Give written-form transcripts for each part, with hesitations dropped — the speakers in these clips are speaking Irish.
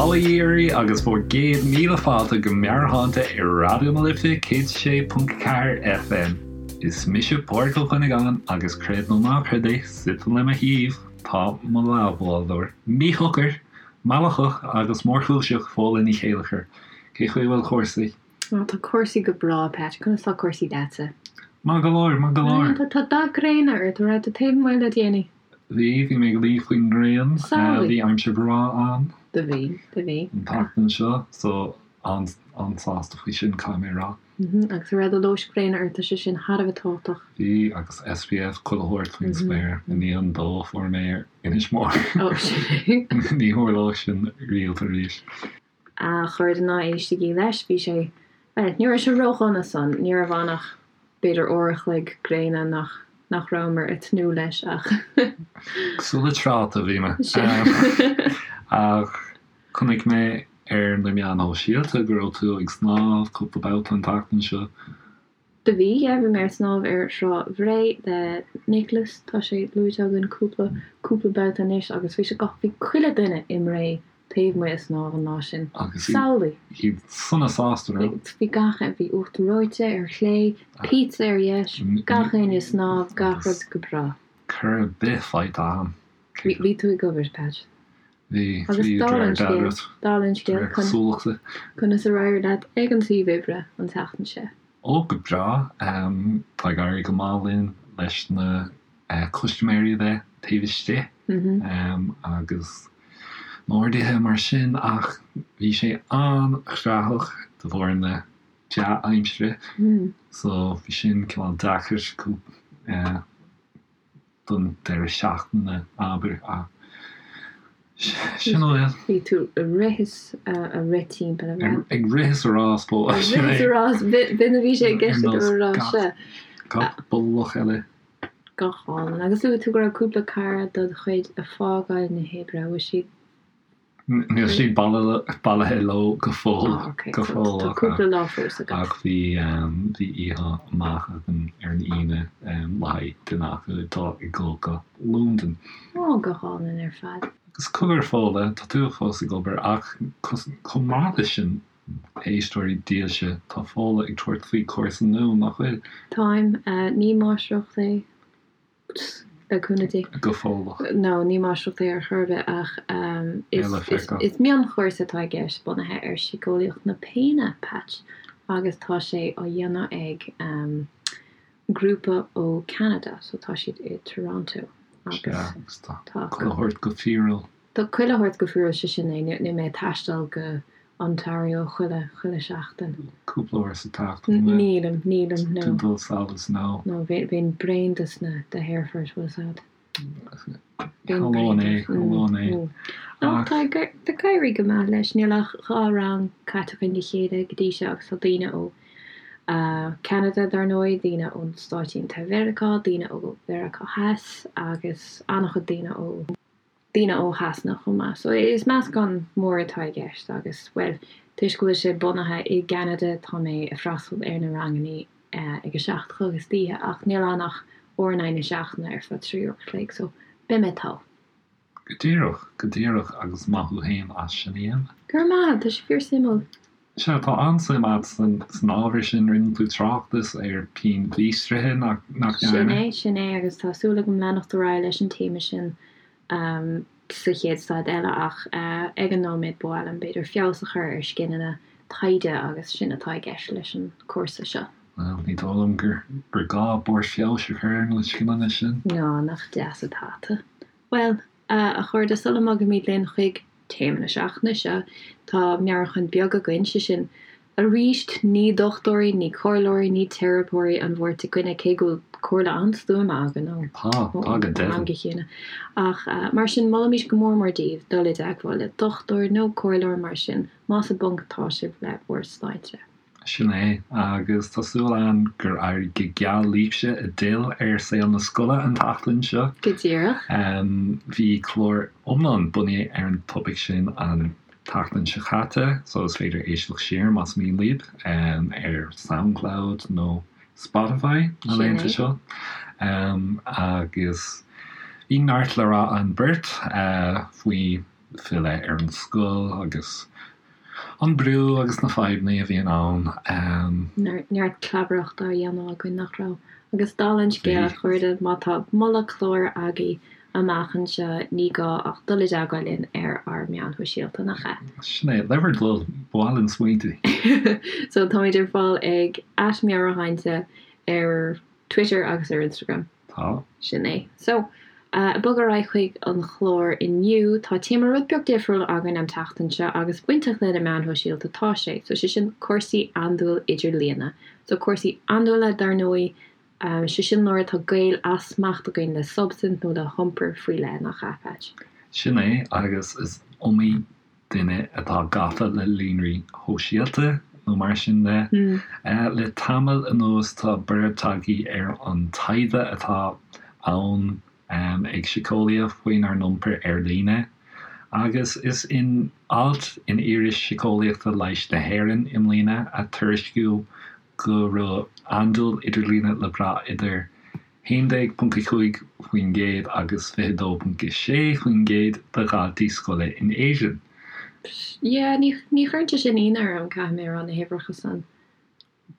Bail ó Dhia oraibh agus bhur gcéad míle fáilte go Meabhairshláinte ar Raidió na Life 106.4 FM. Is mise Pádraig Ó Cuinneagáin agus creid nó ná creid é, suite le mo thaobh tá mo leathbhádóir míshocair, meallacach agus mórchúiseach Fódhla Ní Chéilleachair. Cé chaoi a bhfuil cúrsaí? Á, tá cúrsaí go breá, Pat. Conas tá cúrsaí leatsa? Maith go leor, maith go leor. Tá, tá dath gréine ort, an raibh tú taobh amuigh le déanaí? Bhí, bhí mé ag luí faoin ngrian. Samhlaigh. Bhí aimsir bhreá ann. Do bhí, do bhí. An tseachtain seo, so an-sásta faoi sin, caithfidh mé a rá. Agus an raibh do luas gréine ort, tá sé sin thar a bheith tábhachtach. Bhí, agus SPF chuile shórt faoin spéir. I ndiaidh an dó a fuair mé ar Inis Mór. Ó, sin é. Ní tharlóidh sin riamh arís. A chairde ná éistigí leis, bhí sé, bhuel, ní raibh sé ródhona san, ní raibh ann ach b'fhéidir uair a chloig gréine nach, nach rabhamar ag tnúth leis ach. Cosúil le tráta a bhí mé. Ach chonaic mé ar na meáin shóisialta go raibh tú ag snámh cúpla babhta an tseachtain seo. Do bhí, yeah, bhí mé ar snámh ar Thrá Bhré le Nicholas, tá sé luaite againn cúpla, cúpla babhta anois agus bhí sé go, bhí chuile duine i mBré taobh amuigh ag snámh an lá sin. Agus Samhlaigh! iad sona sásta, raibh? Bhí gach, bhí uachtar reoite ar chlé, pizza ar dheis, gach éinne ag snámh, gach rud go breá. Cor ar bith faighte agam. Bhí tú ag obair, Pat. Bhí, Agus bhí, dála an de réir scéil, dealraimh. dála an De scéil, réir cosúlachta. conas ar éirigh leat ag an suíomh oibre an tseachtain seo? Ó, go breá. Tá ag éirí go maith linn leis na custaiméirí a bheith taobh istigh agus na horduithe mar sin ach bhí sé an-chreathach de bharr na dea-aimsire so bhí sin cineál deacair. don deireadh seachtaine, abair, ach sin a bhfuil. Bhí tú ag rith is a rith timpeall, an raibh? Ag rith is a rás, bó. Ag rith is a rás, b'in a bhí sé i gceist agam a rá, sea. Gach bolach eile. Go hálainn. Agus luaigh tú go raibh cúpla cara dod chuid ag fágáil na hoibre, an bhfuil siad Níl siad bailithe leo go fóill. Go fóill. Tá cúpla lá fós agat. Ach bhí bhí oíche amach againn ar an Aoine le haghaidh duine acu atá ag dul go Londain. Ó, go hálainn ar fad. Agus cogar Fódhla, tá tú fós ag obair ach chomh maith leis sin, éisteoirí dílse, tá Fódhla ag tabhairt faoi chúrsa nua, nach bhfuil? Táim. Ní máistreacht é. Le cúnamh Dé. Go fóilleach. No, ní máistreacht é ar chor ar bith ach is mionchúrsa atá i gceist bunaithe ar síceolaíocht na péine, Patch, agus tá sé á dhéanamh ag grúpa ó Ceanada, so tá siad i Toronto agus tá chuile shórt go fíorúil. Tá chuile shórt go fíorúil, sé sin é. Níl mé ag taisteal go Ontario chuile, chuile sheachtain. Cúpla uair sa tseachtain, an bhfuil? Nílim, nílim, no. Tú dul sall is no. No, bheinn bréan dos na, de haerfoirt, bhfuil fhios a'd. Bheinn bréan é, tharlóinn é. No, tá ag, tá ag éirí go maith leis. Níl ach 2 rang caite againn le chéile go dtí seo agus tá daoine ó Ceanada dar ndóigh, daoine ó Stáit Aontaithe Mheiriceá, daoine ó Mheiriceá Theas agus an-chuid daoine ó. daoine ó Shasana chomh maith. So is meascán mór atá i gceist agus, bhuel, toisc go bhfuil sé bunaithe i gCeanada tá mé ag freastal ar na rangannaí ag a 7 a chlog istoíche ach níl ann ach uair in aghaidh na seachtaine ar feadh 3 uair a chloig so beidh mé togha. Go díreach, go díreach agus maith thú fhéin as sin a dhéanamh. Go raibh maith, tá sé fíor suimiúil. Sea, tá an-suim agat san ábhar sin. Rinne tú tráchtas ar pian mhíostraithe, nach ndearna? Sin é, sin é, agus tá súil agam leanacht ar aghaidh leis an téama sin sa chéad staid eile ach ag an nóiméad ba mhaith liom b'fhéidir feabhas a chur ar scileanna taighde agus sin atá i gceist leis an cúrsa seo. Bhuel, ní dóigh liom gur gá barr feabhais a chur ar na scileanna sin. Ná, nach deas atá tú. Bhuel, a chairde, sula mbogaimid linn chuig téama na seachtaine seo, tá meabhrúchán beag againn, sé sin, arís, ní dochtúirí, ní comhairleoirí, ní teiripeoirí an bheirt againne, cé go bhfuil comhairle an-stuama againn ó Tá, tá go am go chéile. Ach mar sin, molaimid go mór mór daoibh dul i dteagmháil le dochtúir nó comhairleoir mar sin, más i bponc atá sibh le bhur sláinte. Sin é, agus tá súil agam gur éirigh go geal libhse a d'fhill ar saol na scoile an tseachtain seo. Go díreach. Bhí clár iomlán bunaithe ar an topaic sin an tseachtain seo caite, so is féidir éisteacht siar más mian libh ar Soundcloud nó Spotify na laethanta seo. Agus bhí neart le rá againn beirt faoi. filleadh ar an scoil agus an brú agus na fadhbanna a bhíonn ann. Neart clabaireachta á dhéanamh againn, nach raibh? Agus dála an scéil, a chairde, má tá moladh cláir agaibh amach anseo, ní gá ach dul i dteagmháil linn ar ár meáin shóisialta, nach ea? Sin é, le bhur dtoil, ba mhaith linn smaointe. So, táimid ar fáil ag @meabhairshláinte ar Twitter agus ar Instagram. Tá. Sin é. So, ag bogadh ar aghaidh chuig an chlár inniu, tá téama rud beag difriúil againn an tseachtain seo agus bainteach le na meáin shóisialta atá sé. So, sé sin cúrsaí andúil idirlíne. So, cúrsaí andúile, dar ndóigh, sé sin nuair atá gaol as smacht againn le substaint nó le hiompar faoi leith, nach ea, Patch? Sin é, agus is iomaí duine atá gafa le líonraí shóisialta nó mar sin de. Le tamall anuas tá borradh tagtha ar an taighde atá ann ag síceolaithe faoinár n-iompar ar líne agus is in alt in Iris Síceolaíochta Leighis na hÉireann i mbliana a tuairiscíodh go raibh andúil idirlíne le brath idir 11.5% agus 22.6% de dhaltaí scoile in Éirinn. Yeah, ní ní chuireann sé sin ionadh orm, caithfidh mé a rá, na huimhreacha san.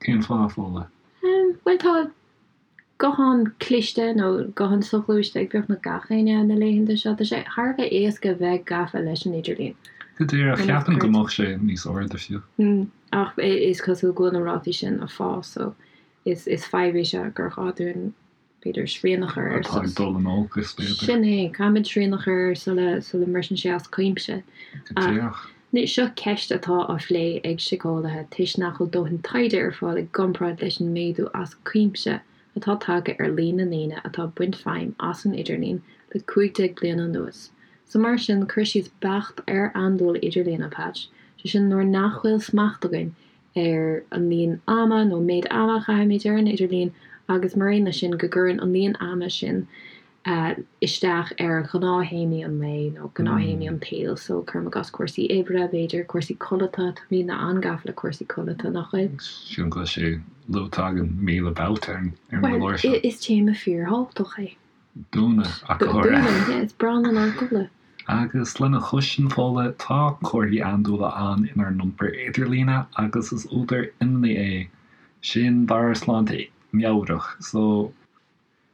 Cén fáth, Fódhla? Bhuel, tá guthán cliste nó guthán soghluaiste ag beagnach gach éinne na laethanta seo. Tá sé thar a bheith éasca bheith gafa leis an idirlíon. Go díreach, cheapfainn go mbeadh sé níos airde fiú. Ach is cosúil go bhfuil na rátaí sin ag fás, so is is fadhb é seo gur ghá dúinn, b'fhéidir, srian a chur air. Atá ag dul in olcas, b'fhéidir. Sin é, caithfimid srian a chur air sula sula mbriseann sé as cuimse. Go díreach. Seo ceist atá á phlé ag síceolaithe toisc nach bhfuil dóthain taighde ar fáil i gcomparáid leis an méadú as cuimse atá tagtha ar líon na ndaoine atá ag baint feidhm as an idirlíon le 15 bliana anuas. So mar sin, cur síos beacht ar andúil idirlíon, a Patch, sé sin nuair nach bhfuil smacht againn ar an líon ama nó méid ama a chaithimid ar an idirlíon agus mar aon leis sin go gcuireann an líon ama sin isteach ar ghnáth-théamaí an lae nó gnáth-théamaí an tsaoil. So, cuirim i gcás cúrsaí oibre, b'fhéidir, cúrsaí codlata, tá daoine an-gafa le cúrsaí codlata, nach bhfuil? Sílim go bhfuil sé luaite againn 1000 babhta ar an gclár seo. Bhuel, is téama fíorthábhachtach é. Dúinne, ach go háirithe. Dúinne, yeah, is breá linn ár gcodladh. Agus lena chois sin, Fódhla, tá comharthaí andúile ann inár n-iompar idirlíne agus is údar imní é sin dár sláinte meabhrach. So,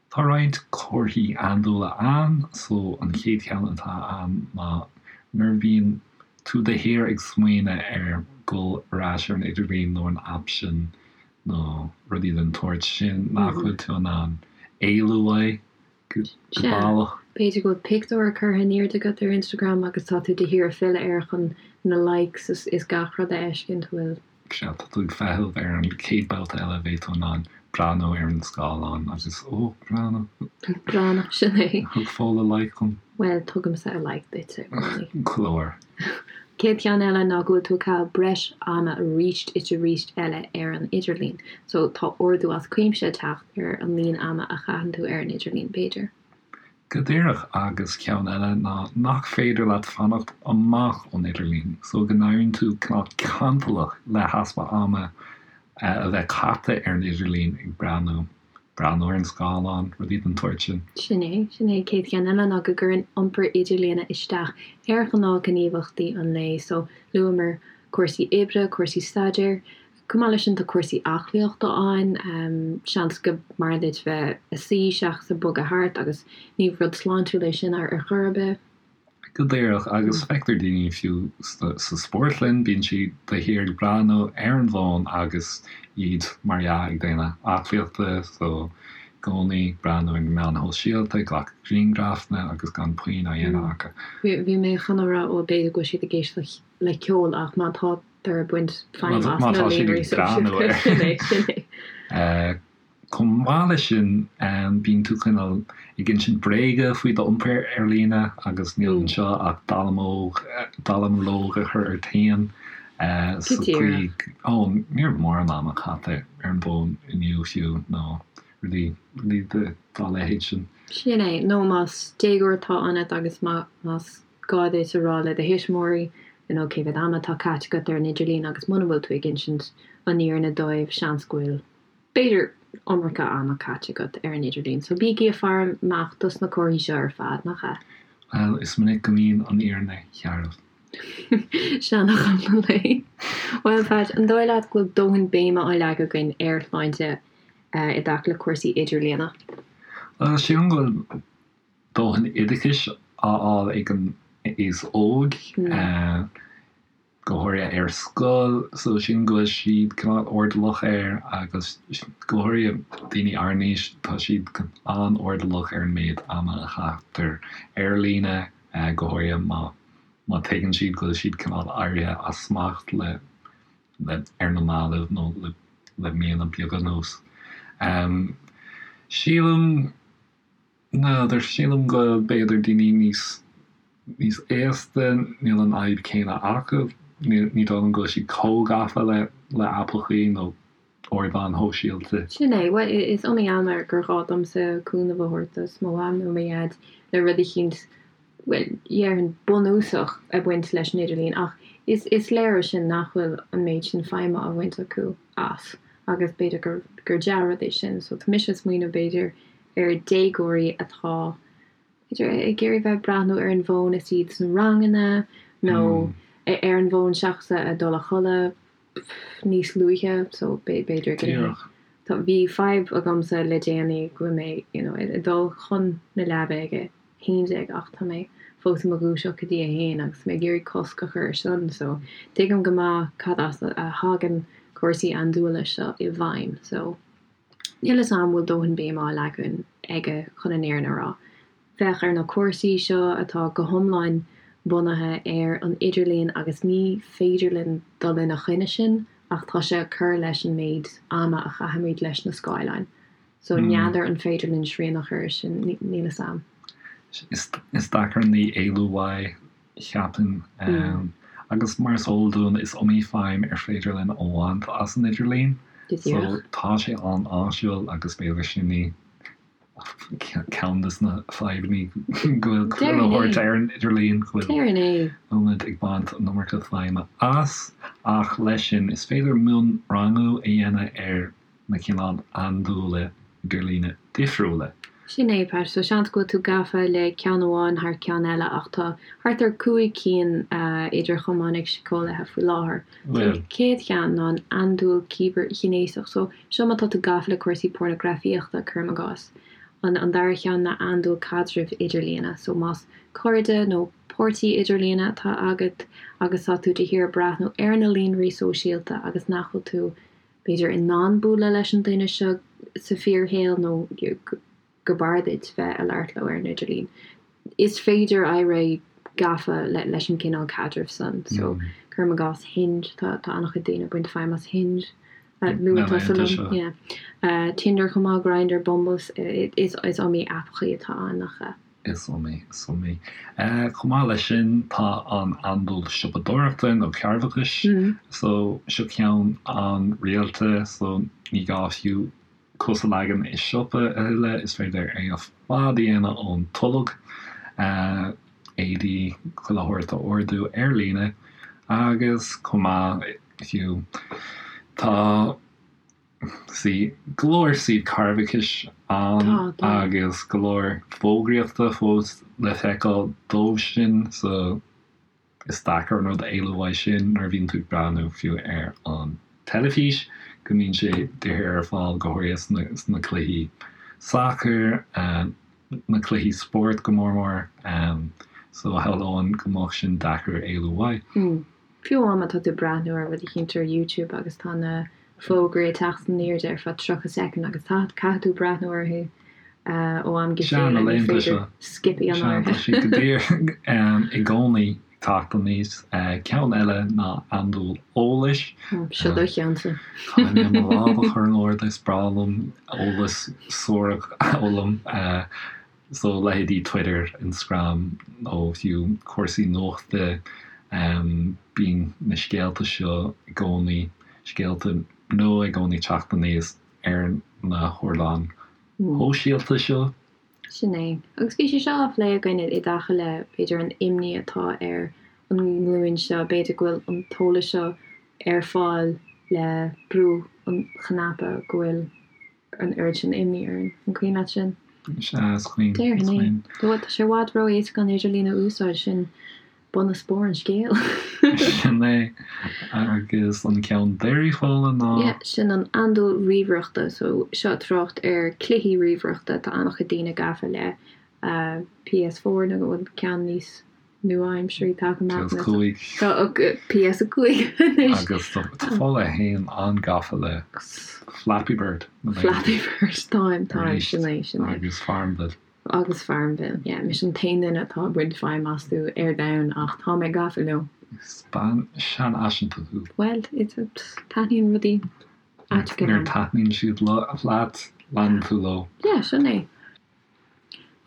tá roinnt comharthaí andúile ann, so an chéad cheann atá ann ná nuair a bhíonn tú de shíor ag smaoineamh ar dhul ar ais ar an idirlíon nó an aip sin nó rudaí den tsórt sin nach bhfuil tú in ann éalú uaidh go Sea. baileach. B'fhéidir go bhfuil pictiúr curtha in airde agat ar Instagram agus tá tú de shíor ag filleadh air chun na likes is gach rud a fheiscint, bhfuil. Sea, tá tú ag feitheamh ar an chéad babhta eile a bheidh tú in ann breathnú ar an scáileán agus, ó, breathnú. Breathnú, sin é. Thug Fódhla like dom. Bhuel, tugaimse like duitse i gcónaí. Glór. Céad cheann eile ná go bhfuil tú ag caitheamh breis ama arís is arís eile ar an idirlíon. So tá ardú as cuimse ag teacht ar an líon ama a chaitheann tú ar an idirlíon, b'fhéidir. Go díreach, agus ceann eile ná nach féidir leat fanacht amach ón idirlíon, so go n-éiríonn tú cineál cantalach le heaspa ama a bheith caite ar an idirlíon ag breathnú. breathnú ar an scáileán, rudaí den tsórt sin. Sin é, sin é. Céad cheann eile ná go gcuireann iompar idirlíne isteach ar ghnáthghníomhaíochtaí an lae. So, luamar cúrsaí oibre, cúrsaí staidéir. Chomh maith leis sin tá cúrsaí aclaíochta ann. Seans go mb'fhearr duit bheith ag suí seachas ag bogadh thart agus ní rud sláintiúil é sin ar chor ar bith. Go díreach, agus feictear daoine fiú sa spórtlann, bíonn siad de shíor ag breathnú ar an bhfón agus iad, mar dhea, ag déanamh aclaíochta, so i gcónaí ag breathnú ar na meáin shóisialta, ag glacadh grianghrafanna agus gan puinn á dhéanamh acu. Bhí mé chun a rá, ó b'fhéidir go bhfuil siad ag éisteacht le ceol ach má tá tar ag baint feidhm as na líonraí sóisialta, sin é, sin é. Chomh maith leis sin, bíonn tú cineál ag insint bréaga faoi d'iompar ar líne agus níl anseo ach dallamullóg a chur ort féin sa chaoi, ó, ní raibh mórán ama caite ar an bhfón inniu fiú nó rudaí dá leithéid sin. Sin é, nó más déagóir atá ionat agus más gá duit a rá le do thuismitheoirí, you know, cé mhéad ama atá caite agat ar an idirlíon agus muna bhfuil tú ag insint an fhírinne dóibh, seans go bhfuil. b'fhéidir, iomarca ama caite agat ar an idirlíon, so bígí ag faire amach dos na comharthaí seo ar fad, nach ea? Bhuel, is minic go mbíonn an fhírinne searbh. Seanfhocal an lae. Bhuel, Pat, an dóigh leat go bhfuil dóthain béime á leagadh againn ar shláinte i dtaca le cúrsaí idirlíona? Bhuel, sílim go bhfuil dóthain oideachais á fháil ag an aos óg. go háirithe ar scoil, so sílim go bhfuil siad cineál airdeallach air agus go háirithe daoine ár n-aois, tá siad an-airdeallach ar an méid ama a chaitear ar líne, go háirithe má má tuigeann siad go bhfuil siad cineál éirithe as smacht le le ar na mallaibh nó le le míonna beaga anuas. Sílim. N'fheadar, sílim go b'fhéidir daoine níos níos aosta, níl an fhadhb céanna acu, ní dóigh liom go bhfuil siad chomh gafa le le aipeachaí nó ardáin shóisialta. Sin é, bhuel, is iomaí am gur ghá domsa cúnamh a thabhairt do mo mham nó mo dhaid le rud eicínt, bhuel, dhéarfainn bunúsach ag baint leis an idirlíon ach is is léir ó sin nach bhfuil an méid sin feidhme á bhaint acu as agus b'fhéidir gur gur dea-rud é sin. So tá mise ag smaoineamh b'fhéidir ar déagóirí atá, b'fhéidir, ag iarraidh bheith ag breathnú ar an bhfón is iad sna ranganna nó ar an bhfón seachas a dul a chodladh níos luaithe so b'fhéidir go Díreach. Tá, bhí fadhb agamsa le déanaí go bhfuil mé you know ag dul chun na leaba ag a 11 ach tá mé fós i mo dhúiseacht go dtí a haon agus tá mé ag iarraidh cosc a chur ar sin so tuigim go maith cad as a thagann cúrsaí andúile seo i bhfeidhm so Níl 'fhios a'm bhfuil dóthain béime á leagan aige chun an fhírinne a rá. Féach ar na cúrsaí seo atá go hiomlán bunaithe ar an idirlíon agus ní féidir linn dul ina choinne sin ach tá sé ag cur leis an méid ama a chaithimid leis na scáileáin. So n'fheadar an féidir linn srian a chur ar sin, níl 'fhios a'm. Is deacair an ní éalú uaidh. cheapfainn. Agus mar is eol dúinn, is iomaí feidhm ar féidir linn a bhaint as an idirlíon. So tá sé an-áisiúil agus b'fhéidir sin í ceann de na fadhbanna go bhfuil chuile shórt ar an idirlíon, go bhfuil muid ag baint an iomarca feidhme as. Ach leis sin, is féidir mionrangú a dhéanamh ar na cineál andúile idirlíne difriúla. Sin é, Pat. So seans go bhfuil tú gafa le ceann amháin thar ceann eile ach tá thart ar 5 cinn idir chamáin ag síceolaithe faoi láthair. So an chéad cheann ná an andúil cibearghnéasach. So seo má tá tú gafa le cúrsaí pornagrafaíochta, cuirim i gcás. An an dara cheann ná andúil caidrimh idirlíne. So más cairde nó páirtí idirlíne atá agat agus tá tú de shíor ag breathnú ar na líonraí sóisialta agus nach bhfuil tú b'fhéidir, in ann bualadh leis an duine seo sa fíorshaol nó go b'fhearr duit bheith ag labhairt leo ar an idirlíon. Is féidir éirí gafa leis an gcineál caidrimh san. So, cuirim i gcás Hinge, tá an-chuid daoine ag baint feidhm as Hinge. Luaigh tusa liom, yeah. Tinder chomh maith, Grindr, Bumble, is iomaí aipeachaí atá ann nach ea? Is iomaí, is iomaí. Chomh maith leis sin, tá an andúil siopadóireachta nó cearrbhachais. So, seo ceann an-rialta, so ní gá fiú cos a leagan i siopa a thuilleadh, is féidir é ar fad a dhéanamh ón tolg, éadaí, chuile shórt a ordú ar líne agus chomh maith, fiú, tá. Sea, go leor suíomh cearrbhachais ann agus go leor fógraíochta fós le feiceáil dóibh sin so is deacair an rud a éalú uaidh sin nuair a bhíonn tú ag breathnú fiú ar an teilifís go mbíonn sé de shíor ar fáil go háirithe sna cluichí sacair, na cluichí spóirt go mór mór so shamhlóinn go mbeadh sin deacair éalú uaidh. Fiú amháin má tá tú ag breathnú ar rud eicínt ar YouTube agus tá na fógraí ag teacht in airde ar feadh 30 soicind agus caithfidh tú breathnú orthu ó am go chéile, ní féidir skip a dhéanamh orthu. Sea, tá siad go díreach i gcónaí ag teacht aníos. Ceann eile ná andúil eolais. Seo do cheannsa. Caithfidh mé mo lámh a chur in airde, is breá liom eolas suarach a fhoghlaim. So, leithéidí Twitter, Instagram nó fiú cúrsaí nuachta, bíonn na scéalta seo i gcónaí, scéalta nua i gcónaí ag teacht aníos ar na hardáin shóisialta seo. Sin é. Agus bhí sé seo á phlé againn i dtaca le, b'fhéidir, an imní atá ar an nglúin seo, b'fhéidir go bhfuil an t-eolas seo ar fáil le brú an chnaipe, go bhfuil an oiread sin imní orainn. An cuimhin leat sin? Sea, is cuimhin, is Déarfainn é. cuimhin. Bhuel, tá sé i bhfad ró-éasca an idirlíon a úsáid, sin bun is barr an scéil. Sin é. Agus an ceann deiridh, Fódhla, ná. Yeah, sin an andúil ríomhaireachta. So, seo trácht ar cluichí ríomhaireachta. Tá an-chuid daoine gafa le PS4 nó an ceann níos nua-aimseartha atá amach PS5. Tá PS5 anois. Agus tá Fódhla féin an-gafa le Flappy Bird. Flappy Bird, táim, táim, sin é, sin é. Agus Farmville. Agus Farmville, yeah. Mise an t-aon duine atá ag baint feidhm astu ar domhan ach tá mé gafa leo. Is bean seanfhaiseanta thú. Bhuel, it's a, taitníonn rudaí aiteacha Nuair liom. a taitníonn siad leat, leanann tú leo. Yeah, sin é.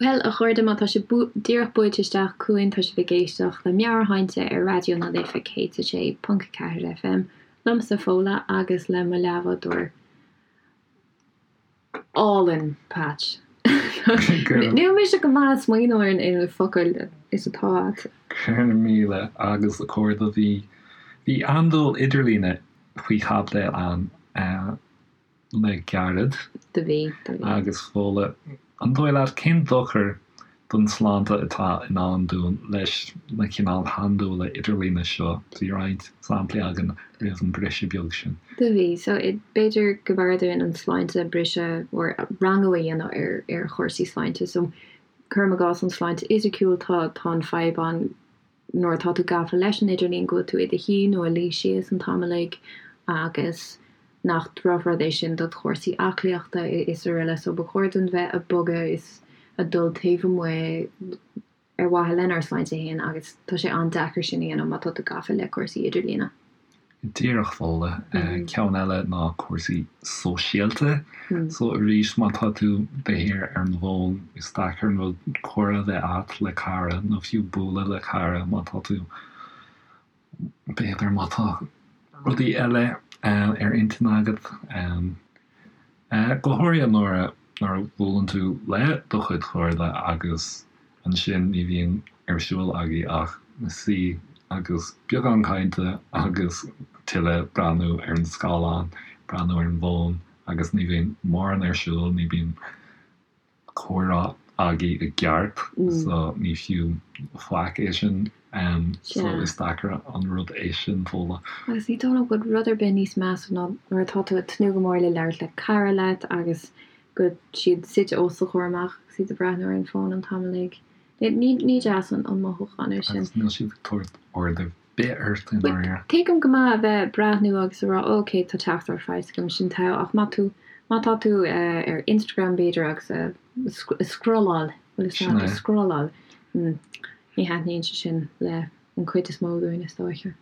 Bhuel, a chairde, má tá sibh díreach buailte isteach chugainn, tá sibh ag éisteacht le Meabhairshláinte ar Raidió na Life 106.4 FM, liomsa, Fódhla, agus le mo leathbhádóir álainn, Patch. Níl mise go maith ag smaoineamh ar na focail is atá agat. Go raibh míle agus a chairde, bhí, bhí andúil idirlíne faoi chaibidil againn. le gairid. Do bhí, do bhí. Agus Fódhla, an dóigh leat, cén dochar don tsláinte atá i ndán dúinn leis na cineál handúile idirlíne seo? Bhí roinnt samplaí againn roimh an briseadh beag sin. Do bhí. So, b'fhéidir go mb'fhearr dúinn an sláinte briseadh or rangú a dhéanamh ar ar chúrsaí sláinte. So, cuirim i gcás an sláinte fhisiciúil, tá tá an fadhb ann nuair atá tú gafa leis an idirlíon go bhfuil tú i do shuí nó ag luí síos an t-am uilig agus nach drochrud é sin do chúrsaí aclaíochta is araile so ba chóir dúinn bheith ag bogadh is ag dul taobh amuigh ar mhaithe lenár sláinte féin agus tá sé an-deacair sin a dhéanamh má tá tú gafa le cúrsaí idirlíne. Díreach, Fódhla. Ceann eile ná cúrsaí sóisialta. So arís, má tá tú de shíor ar an bhfón, is deacair an rud comhrá a bheith agat le cara nó fiú bualadh le cara má tá tú, b'fhéidir má tá rudaí eile ar intinn agat. Go háirithe nuair a nuair a bhuaileann tú le do chuid cairde agus ansin ní bhíonn ar siúl agaibh ach suí agus beagán cainte agus tuilleadh breathnú ar an scáileán, breathnú ar an bhfón agus ní bhíonn mórán ar siúl, ní bhíonn comhrá agaibh i gceart so ní fiú faic é sin so is deacair an rud é sin Fódhla. Agus ní dóigh liom go bhfuil rud ar bith níos measa ná nuair atá tú ag tnúth go mór le labhairt le cara leat agus go bhfuil siad suite os do chomhair amach agus iad ag breathnú ar an bhfón an t-am uilig. Ní ní deas an mothúchán é sin. Agus níl siad ag tabhairt aird ar bith ort i ndáiríre. Tuigim go maith a bheith ag breathnú agus a rá ok tá teachtaireacht faighte agam sin togha ach má tú má tá tú ar Instagram b'fhéidir agus ag scrolláil bhfuil fhios agat ag scrolláil ní thaitníonn sé sin le an chuid is mó dúinn is dóiche.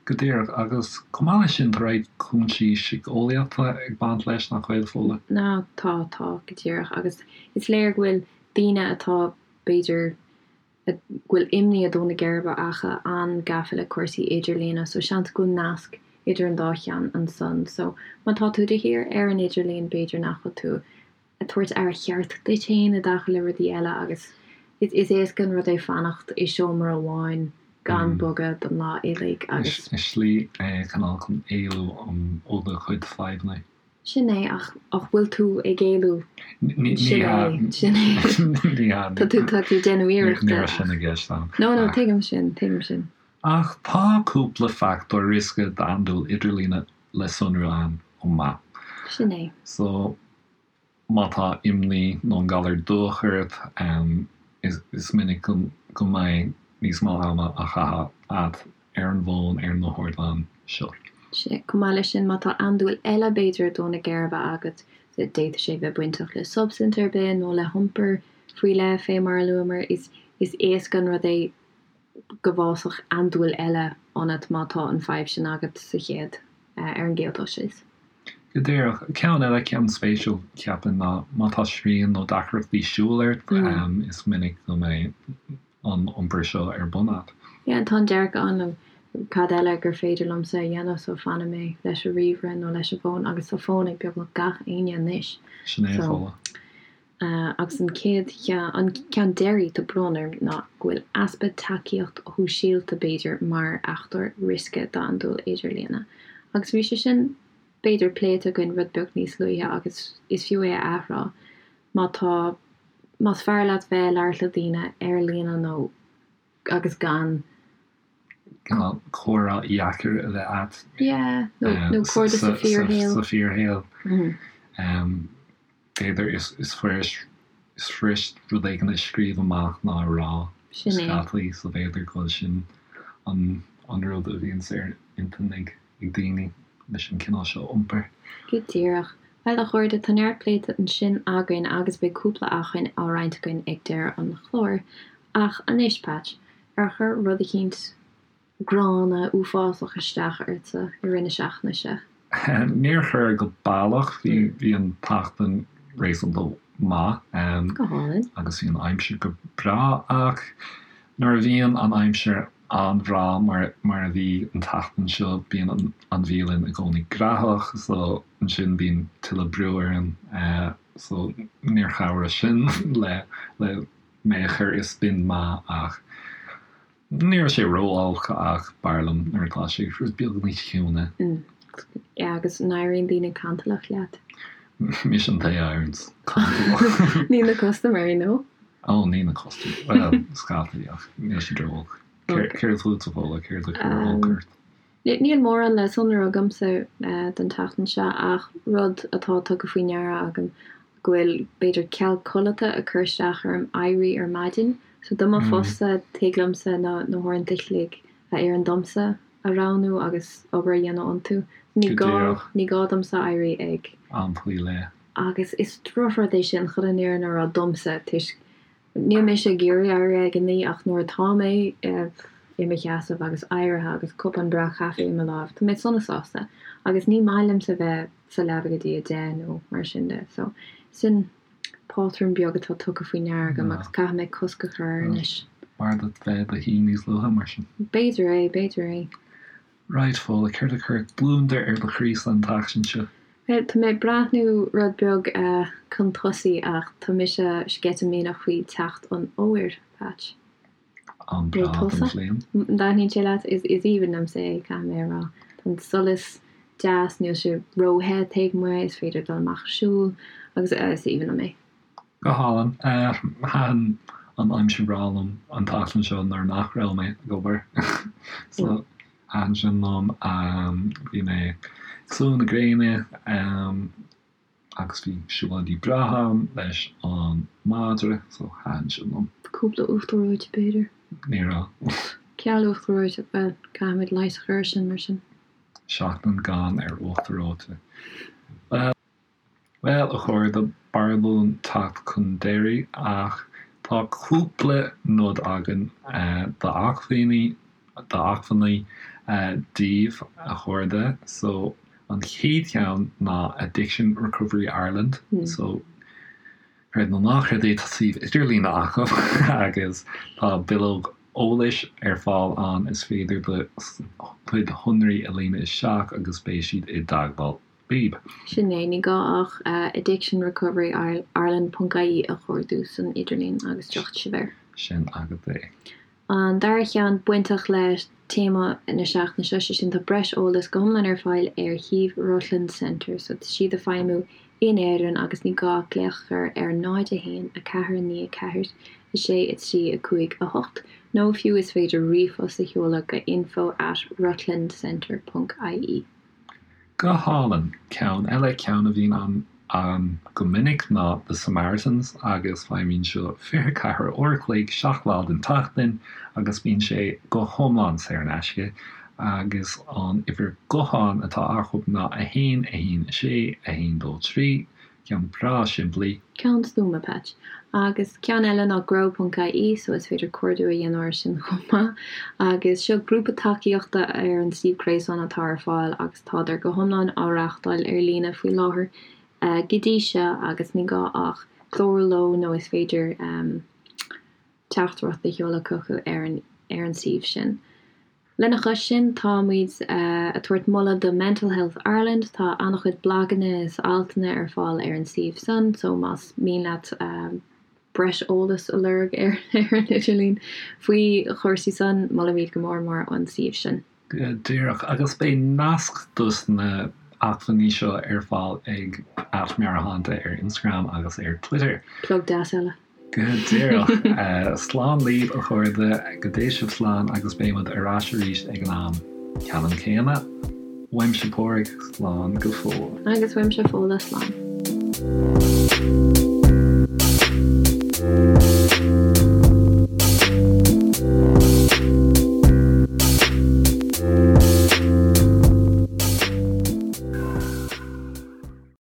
Go díreach agus chomh maith leis sin tá roinnt cúinsí síceolaíochta ag baint leis nach bhfuil Fódhla? Ná tá tá go díreach agus is léir go bhfuil daoine atá b'fhéidir go bhfuil imní ag dó na geirbe acu an-gafa le cúrsaí idirlíne so seans go bhfuil nasc idir an dá cheann ansan. So má tá tú de shíor ar an idirlíon b'fhéidir nach bhfuil tú ag tabhairt aire cheart duit féin i dtaca le rudaí eile agus is éasca an rud é fanacht i seomra amháin gan bogadh don lá uilig agus. Is slí é cineál chun éalú ó do chuid fadhbanna. Sin é, ach ach bhfuil tú ag éalú? Ní Sin hea. é, sin é. Ní hea. Tá tú, tá tú ag déanamh iarrachta Ní raibh ach. sin i gceist agam. No, no, tuigim sin, tuigim sin. Ach tá cúpla fachtóir riosca d'andúil idirlíne le sonrú ann chomh maith. Sin é. So, má tá imní nó an galar dubhach ort, is minic go mbeidh níos mó ama á chaitheamh agat ar an bhfón ar na hardáin seo. Sea, chomh maith leis sin, má tá andúil eile b'fhéidir ag dó na geirbe agat, d'fhéadfadh sé bheith bainteach le substaint ar bith nó le hiompar faoi leith, fé mar a luamar, is éasca an rud é go bhfásfadh andúil eile ionat má tá an fadhb sin agat sa chéad, ar an gcéad dul síos. Go díreach. Ceann eile, ceann spéisiúil, cheapfainn, ná má tá srian nó deacrachtaí siúil ort, is minic go mbeidh an iompar seo ar bun agat. Yeah, tá an dearcadh ann, cad eile gur féidir liomsa a dhéanamh so fanfaidh mé leis an ríomhaire nó leis an bhfón agus tá fón ag beagnach gach éinne anois. Sin é, So, Fódhla. agus an chéad cheann, an ceann deiridh, tá brón orm, ná go bhfuil easpa tacaíocht shóisialta b'fhéidir mar fhachtóir riosca d'andúil idirlíne. Agus bhí sé sin b'fhéidir pléite againn rud beag níos luaithe agus is fiú é a athrá má tá. Más fearr leat bheith ag labhairt le daoine ar líne nó agus gan. Cineál comhrá dheacair a bheith a't. Yeah, nó cairde sa fíorshaol. Sa fíorshaol. B'fhéidir is fuirist is fuirist rud éigin a scríobh amach ná a rá Sin é. Scaití, so b'fhéidir go bhfuil sin an an rud a bhíonns ar intinn ag ag daoine leis an cineál seo iompair. Go díreach. Bhuel, a chairde, tá neart pléite ansin againn agus beidh cúpla acmhainn á roinnt againn ag deireadh an chláir. Ach anois, Patch, ar chuir rud eicínt gránna, uafásach isteach ortsa i rith na seachtaine seo? Níor chuir go baileach. Bhí bhí an tseachtain réasúnta maith. Go hálainn. Agus bhí an aimsir go breá ach nuair a bhíonn an aimsir an-bhreá mar mar a bhí an tseachtain seo bíonn an an bhialann i gcónaí graitheach so ansin bíonn tuilleadh brú orainn so níor chabhraigh sin le le mé a chur i spion maith ach Ní raibh sé ró-olc ach b'fhearr liom nuair atá sé rud beag níos ciúine. Yeah, agus an éiríonn daoine cantalach leat? Mise an té a éiríonns cantalach. Ní na custaiméirí, nó? Ó, ní na custaiméirí. Bhuel, scaití, ach níl siad ró-olc. Céard fútsa, Fódhla? Céard a chuir olc ort? Níl mórán le sonrú agamsa don tseachtain seo ach rud atá tugtha faoi ndeara agam go bhfuil b'fhéidir ceal codlata ag cur isteach orm éirí ar maidin. So do mo phost-sa tig liomsa na na huaireanta a chloig a oireann domsa a roghnú agus obair a dhéanamh iontu. Ní gá ní gá domsa éirí ag. Am faoi leith. Agus is drochrud é sin chun an fhírinne a rá domsa toisc Níl mise ag iarraidh éirí ag a naoi ach nuair atá mé i mo sheasamh agus éirithe agus cupán breá caife i mo láimh, tá mé sona sásta. Agus ní maith liomsa bheith sa leaba go dtí a deich nó mar sin de. So, sin pátrún beag atá tugtha faoi ndeara agam agus caithfidh mé cosc a chur air anois. B'fhearr duit bheith i do shuí níos luaithe mar sin. B'fhéidir é, b'fhéidir é. Right, Fódhla, céard a chuir gliondar ar do chroí-sa an tseachtain seo? Bhuel, tá mé ag breathnú rud beag chun tosaigh ach tá mise sceitimíneach faoi teacht an fhómhair, Patch. Am breá den bhliain. An dtaitníonn sé leat? Is aoibhinn liomsa é, caithfidh mé a rá. Tá an solas deas, níl sé ró-the taobh amuigh, is féidir dul amach ag siúl agus is aoibhinn liom é. Go hálainn. Thaitin an aimsir bhreá liom an tseachtain seo nuair nach raibh mé ag obair. So, thaitin sin liom. Bhí mé ag sluaigh na gréine agus bhí siúlóidí breátha agam leis an madra, so thaitin sin liom. Cúpla uachtar reoite, b'fhéidir? Ní raibh. Ceal uachtar reoite, bhuel, caithfimid leigheas a chur air sin mar sin. Seachtain gann ar uachtar reoite. Bhuel. Bhuel, a chairde, b'fhearr dúinn teacht chun deiridh, ach tá cúpla nod againn d'acmhainní, d'acmhainní daoibh, a chairde. So, an chéad cheann ná Addiction Recovery Ireland. So, creid nó ná creid é, tá suíomh idirlíne acu agus tá bileog eolais ar fáil ann, is féidir do chuid shonraí a líonadh isteach agus beidh siad i dteagmháil libh. Sin é, ní gá ach addictionrecoverireland ponc ie a chuardú san idirlíon agus tiocfaidh sibh air. Sin agat é. An dara ceann bainteach le téama na seachtaine seo, sé sin tá breis eolais go hiomlán ar fáil ar shuíomh Rutland Centre, so tá siad ag feidhmiú in Éirinn agus ní gá ach glaoch a chur ar 0 1 4 9 4 6 3 5 8 nó fiú is féidir ríomhphost a sheoladh go info at rutlandcentre ponc ie. Go hálainn. Ceann eile, ceann a bhíonn ann go minic ná The Samaritans agus feidhmíonn seo 24 uair a chloig, 7 lá den tseachtain agus bíonn sé go hiomlán saor in aisce agus an uimhir gutháin atá acu ná 1 1 6 1 2 3. Ceann breá simplí. Ceann stuama, Patch. Agus ceann eile ná grow ponc ie, so is féidir cuardú a dhéanamh air sin chomh maith. Agus seo grúpa tacaíochta ar an suíomh gréasáin atá ar fáil agus tádar go hiomlán á reáchtáil ar líne faoi láthair go dtí seo agus ní gá ach clárú leo nó is féidir teachtaireacht a sheoladh chucu ar an ar an suíomh sin. Lena chois sin, tá muid ag tabhairt moladh do Mental Health Ireland, tá an-chuid blaganna is altanna ar fáil ar an suíomh san, so más mian leat breis eolais a lorg ar an idirlíon faoi chúrsaí san, molaimid go mór mór an suíomh sin. Go díreach, agus beidh nasc dos na acmhainní seo ar fáil ag @Meabhairshláinte ar Instagram agus ar Twitter. Plug deas eile. Go díreach. Slán libh, a chairde, go dté sibh slán agus beidh muid ar ais arís ag an am ceannann céanna. Uaimse Pádraig, slán go fóill. Agus uaimse Fódhla, slán.